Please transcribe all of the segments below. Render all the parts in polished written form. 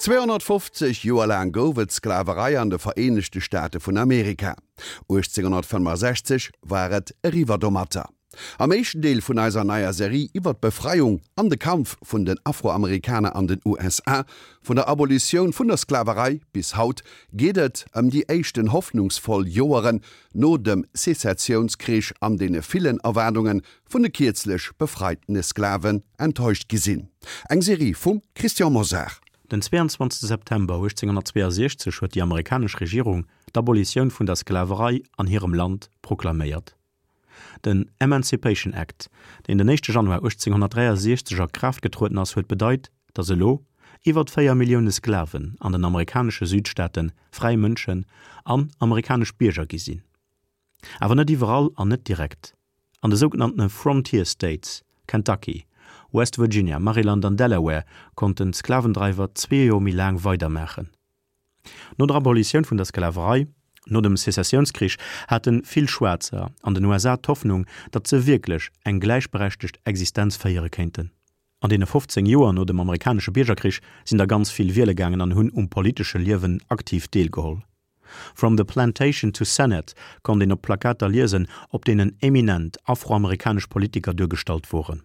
250 Joer laang gouf et d'Sklaverei an de Vereenegte Staate vun Amerika. 1865 war et eriwwer domatter. Am éischten Deel vun eiser neier Serie iwwer d'Befreiung an de Kampf vun den Afroamerikaner an den USA, vun der Abolitioun vun der Sklaverei bis haut, geet et ëm déi éischten hoffnungsvoll Joeren no dem Sezessiounskrich an deene villen Erwaardunge vun de kierzlech befreitene Sklaven enttäuscht gi sinn. Eng Serie vum Christian Mosar. Den 22 September 1862 huet déi amerikanesch Regierung d'Abolitioun vun der Sklaverei an hirem Land proklaméiert. Den Emancipation Act, deen den éischte Januar 1863 a Kraaft getrueden ass, huet bedeit, datt elo iwwert 4 Millioune Sklaven an den amerikanesche Südstaate fräi Mënschen an amerikanesch Bierger gi sinn. Awer net iwwerall an net direkt. An de sougenanntene Frontier States, Kentucky, West Virginia, Maryland an Delaware, konnten d'Sklavendreiwer zwee Joer méi laang weidermaachen. No der Abolitioun vun der Sklaverei, no dem Sezessiounskrich, hate vill Schwaarzer an den USA d'Hoffnung, datt se wierklech eng gläichberechtegt Existenz féiere kéinten. An deene 15 Joer no dem amerikanesche Biergerkrich sinn der ganz vill wiele gaangen an hunn um politesche Liewen aktiv deelgeholl. From the Plantation to Senate konnt een op Plakater liesen, op deenen eminent afroamerikanesch Politiker duergestallt woren.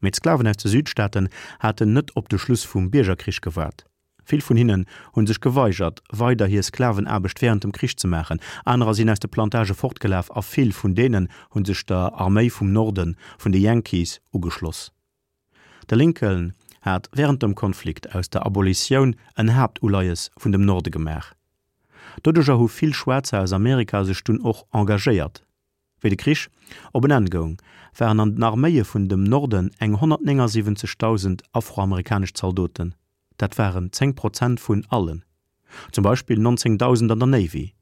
Mee d'Sklaven aus de Südstaaten haten net op de Schluss vum Biergerkrich gewaart. Vill vun hinnen hu sech geweigert, weider hir Sklavenaarbecht wärend dem Krich ze maachen, anerer sinn aus de Plantagë fortgelaf a vill vun deenen hu sech der Arméi vum Norden, vun de Yankees, ugeschloss. De Lincoln hat wärend dem Konflikt aus der Abolitioun en Haaptuleies vun dem Norde gemaach. Doduercher hu vill Schwaarzer aus Amerika sech dunn och engagéiert. Wéi de Krich op en Enn goung, waren an den Arméie vun dem Norden eng 179.000 afroamerikanesch Zaldoten, dat waren 10 Prozent vun allen, zum Beispill 19.000 an der Navy.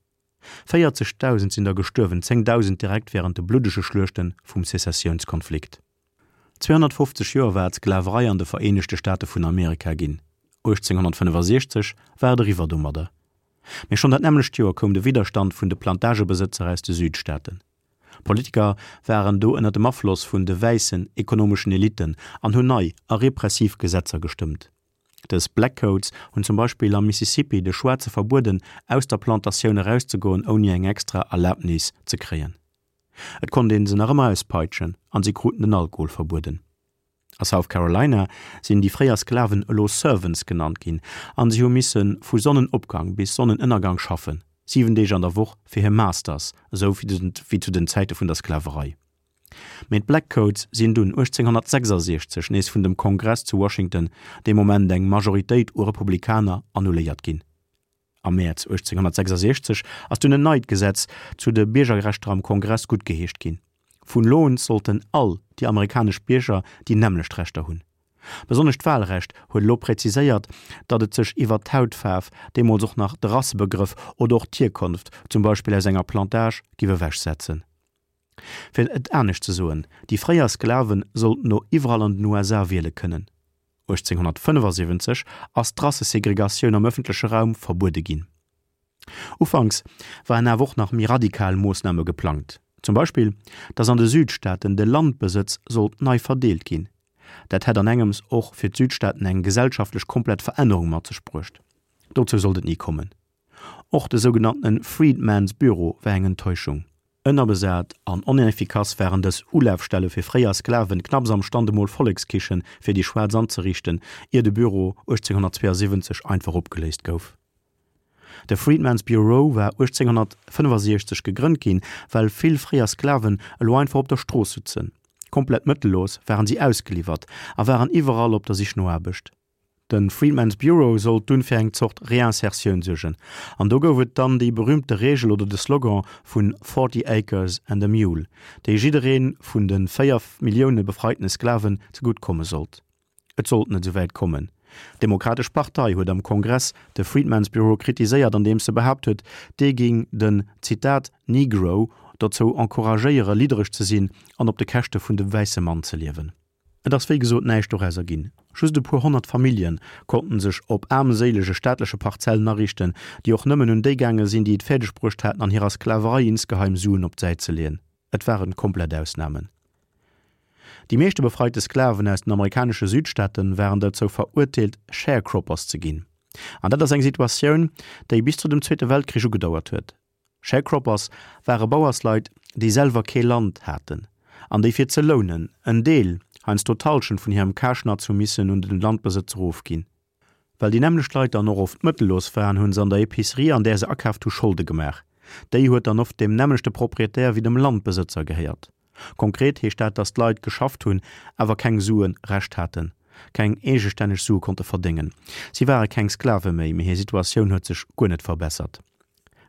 40.000 sinn der gestuerwen, 10.000 direkt wärend de bluddege Schluechte vum Sezessiounskonflikt. 250 Joer war d'Sklaverei an de Vereenegte Staate vun Amerika ginn. 1865 war et eriwwer domadder. Mee schonn dat nämmlecht Joer koum de Widderstand vun de Plantagebesëtzer aus de Südstaaten. Politiker waren do ënner dem Afloss vun de wäissen ekonomeschen Elitten an hunn nei a repressiv Gesetzer gestëmmt. Dës Black Codes hunn zum Beispill am Mississippi de Schwaarze verbueden, aus der Plantatioun erauszegoen ouni eng extra Erlabnis ze kréien. Et konnt een se nach ëmmer auspeitschen an si kruten den Alkohol verbueden. A South Carolina sinn déi fréier Sklaven elo Servants genannt ginn an si hu misse vu Sonnenopgang bis Sonnenënnergang schaffen, 7 Deeg an der Woch fir hir Masters, esou wéi zu den Zäite vun der Sklaverei. Mee d'Black Codes sinn dunn 1866 nees vun dem Kongress zu Washington, dee Moment eng Majoritéit u Republikaner, annuléiert ginn. Am Mäerz 1866 ass dunn en neit Gesetz zu de Biergerrechter am Kongress guttgeheescht ginn. Vun elo un sollten all déi amerikanesch Bierger déi nämmlecht Rechter hunn. Besonnesch d'Wahlrecht huet elo präziséiert, datt et sech iwwert d'Hautfaarf, deemools och nach de Rassebegrëff, oder och d'Hierkonft, zum Beispill aus enger Plantage, giff ewechsetzen. Fir et anescht ze soen, déi fréier Sklave sollten no iwwerall an den USA wiele kënnen. 1875 ass d'Rassesegregatioun am ëffentleche Raum verbuede ginn. Ufanks waren awer och nach méi radikal Moossname geplangt, zum Beispill, datt an de Südstaaten de Landbesëtz sollt nei verdeelt ginn. Dat hätt an engems och fir d'Südstaaten eng gesellschaftlech komplett Verännerung mat sech bruecht. Dozou sollt et ni kommen. Och de sougenanntene Freedmen's Bureau war eng Enttäuschung. Ënnerbesat an oneffikass waren dës Ulafstelle fir fréier Sklaven, knapps am Stand emol Vollekskichen fir déi Schwaarz anzeriichten, ier de Büro 1872 einfach opgeléist gouf. De Freedmen's Bureau war 1865 gegrënnt ginn, well vill fréier Sklaven elo einfach op der Strooss sutzen. Komplett mëttellos waren si ausgeliwwert a waren iwwerall op der Sich no Aarbecht. De Freedmen's Bureau sollt dunn fir eng Zort Reinsertioun suergen, an do gouf et dann déi berühmte Reegel oder de Slogan vun Forty acres and a mule, déi jidderee vun de 4 Millioune befreitene Sklaven zegutt komme sollt. Et sollt net esou wäit kommen. D'Demokratesch Partei huet am Kongress de Freedmen's Bureau kritiséiert, andeems se behaapt huet, dee géing den, Zitat, Negro dozou encouragéiere liddereg ze sinn an op de Käschte vun dem wäisse Mann ze liewen. Et ass wéi gesot näischt dorauser ginn. Just e puer 100 Famillje konnten sech op aarmséilege staatleche Parzellen ariichten, déi och nëmmen un déi gaange sinn, déi et fäerdeg bruecht haten, an hirer Sklaverei insgeheim Suen op d'Säit ze leeën. Et waren komplett Ausnamen. Déi meeschte befreite Sklaven aus den amerikanesche Südstaate waren derzou verurteelt, Sharecroppers ze ginn. An dat ass eng Situatioun, déi bis zu dem Zweete Weltkrich ugedauert huet. Sharecroppers ware Bauersleit, déi selwer kee Land haten an déi fir ze lounen en Deel, heiansdo d'Hallschent vun hirem Karschnatz hu missen un den Landbesëtzer ofginn. Well déi nämmlecht Leit dann och oft mëttellos waren, hu se an der Epicerie, an där se akaaft hu, Scholde gemaach. Déi huet dann oft deem nämmlechte Proprietär wéi dem Landbesëtzer gehéiert. Konkret heescht dat, datt d'Leit geschafft hunn, awer keng Sue Recht haten, keng eegestänneg Sue konnte verdéngen. Si ware keng Sklave méi, mee hir Situatioun huet sech guer net verbessert.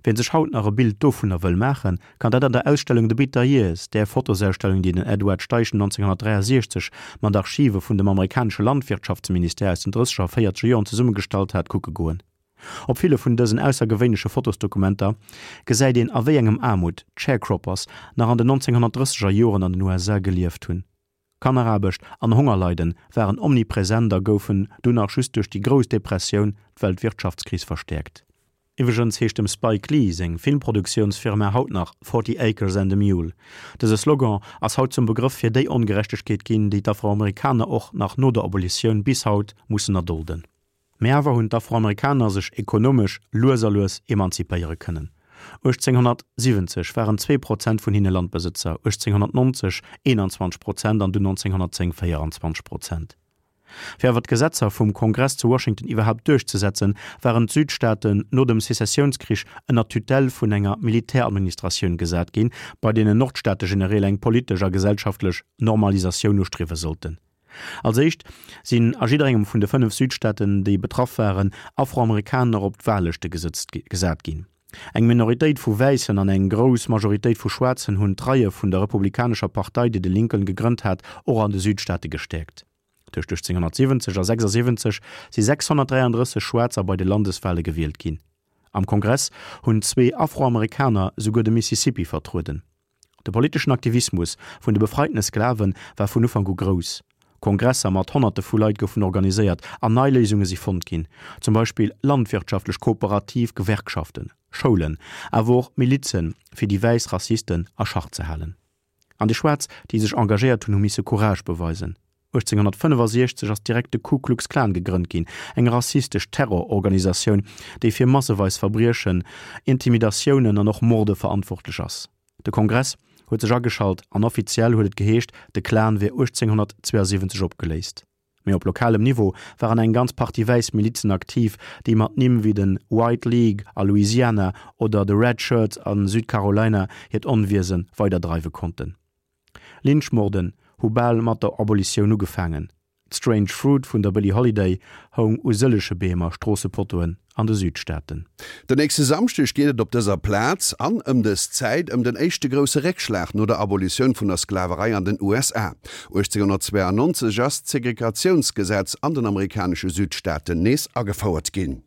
Wien sech haut nach e Bild dovunner wëll maachen, kann dat an der Ausstellung The Bitter Years, där Fotosausstellung, déi den Edward Steichen 1963 mat Archive vun dem amerikanesche Landwirtschaftsministère aus den drësseger a véierzeger Joren zesummegestallt hat, kucke goen. Op ville vun dësen aussergewéinleche Fotosdokumenter gesäit een a wéi engem Aarmut d'Sharecroppers nach an den 1930er Joren an den USA gelieft hunn. Kanneraarbecht an Hongerleiden waren omnipresent a goufen dunn nach just duerch déi Grouss Depressioun, d'Weltwirtschaftskris, verstäerkt. Iwwregens heescht dem Spike Lee seng Filmproduktiounsfirma haut nach Forty Acres and a Mule. Dëse Slogan ass haut zum Begrëff fir déi Ongerechtegkeet ginn, déi d'Afroamerikaner och nach no der Abolitioun bis haut mussen erdolden. Mee awer hunn d'Afroamerikaner sech ekonomesch lues a lues emanzipéiere kënnen. 1870 waren 2 Prozent vun hinne Landbesëtzer, 1890 21 Prozent an dunn 1910 24 Prozent. Fir awer d'Gesetzer vum Kongress zu Washington iwwerhaapt duerchzesetzen, waren d'Südstaaten no dem Sezessiounskrich ënner d'Tutelle vun enger Militäradministratioun gesat ginn, bei deenen Nordstaategenereel eng politesch a gesellschaftlech Normalisatioun ustriewe sollten. Als éischt sinn a jidderengem vun de 5 Südstaaten, déi betraff waren, Afroamerikaner op d'Wahllëschte gesat ginn. Eng Minoritéit vu Wäissen an eng grouss Majoritéit vu Schwaarzen hunn d'Reie vun der Republikanescher Partei, déi de Lincoln gegrënnt hat, och an de Südstaate gestäerkt. Tëscht 1870 a 76 si 633 Schwaarzer bei de Landeswahle gewielt ginn. Am Kongress hunn zwee Afroamerikaner souguer de Mississippi vertrueden. De politeschen Aktivismus vun de befreitene Sklave war vun Ufank u grouss. Kongresser mat Honnerte vu Leit goufen organiséiert an nei Léisunge si fonnt ginn, zum Beispill landwirtschaftlech kooperativ Gewerkschaften, Schoulen, awer och Milizen, fir déi wäiss Rassisten a Schach ze halen. An déi Schwaarz, déi sech engagéiert hunn, hu misse Courage beweisen. 1865 ass direkt de Ku Klux Klan gegrënnt ginn, eng rassistesch Terrororganisatioun, déi fir masseweis Verbriechen, Intimidatiounen an och Morde verantwortlech ass. De Kongress huet sech ageschalt an offiziell huet et geheescht, de Klan wier 1872 opgeléist. Mee op lokalem Niveau waren eng ganz Partie wäiss Milizen aktiv, déi mat Nimm wéi de White League a Louisiana oder de Red Shirts a Südcarolina hiert Onwiese weiderdreiwe konnten. Lynchmorden hu bal mat der Abolitioun ugefaangen. D'Strange Fruit vun der Billie Holiday houng u sëllege Beem a Stroossepotoen an de Südstaaten. Den nächste Samschdeg geet et op dëser Plaz an ëm dës Zäit ëm den éischte grousse Réckschlag no der Abolitioun vun der Sklaverei an den USA. 1892 ass d'Segregatiounsgesetz an den amerikanesche Südstaaten nees agefouert ginn.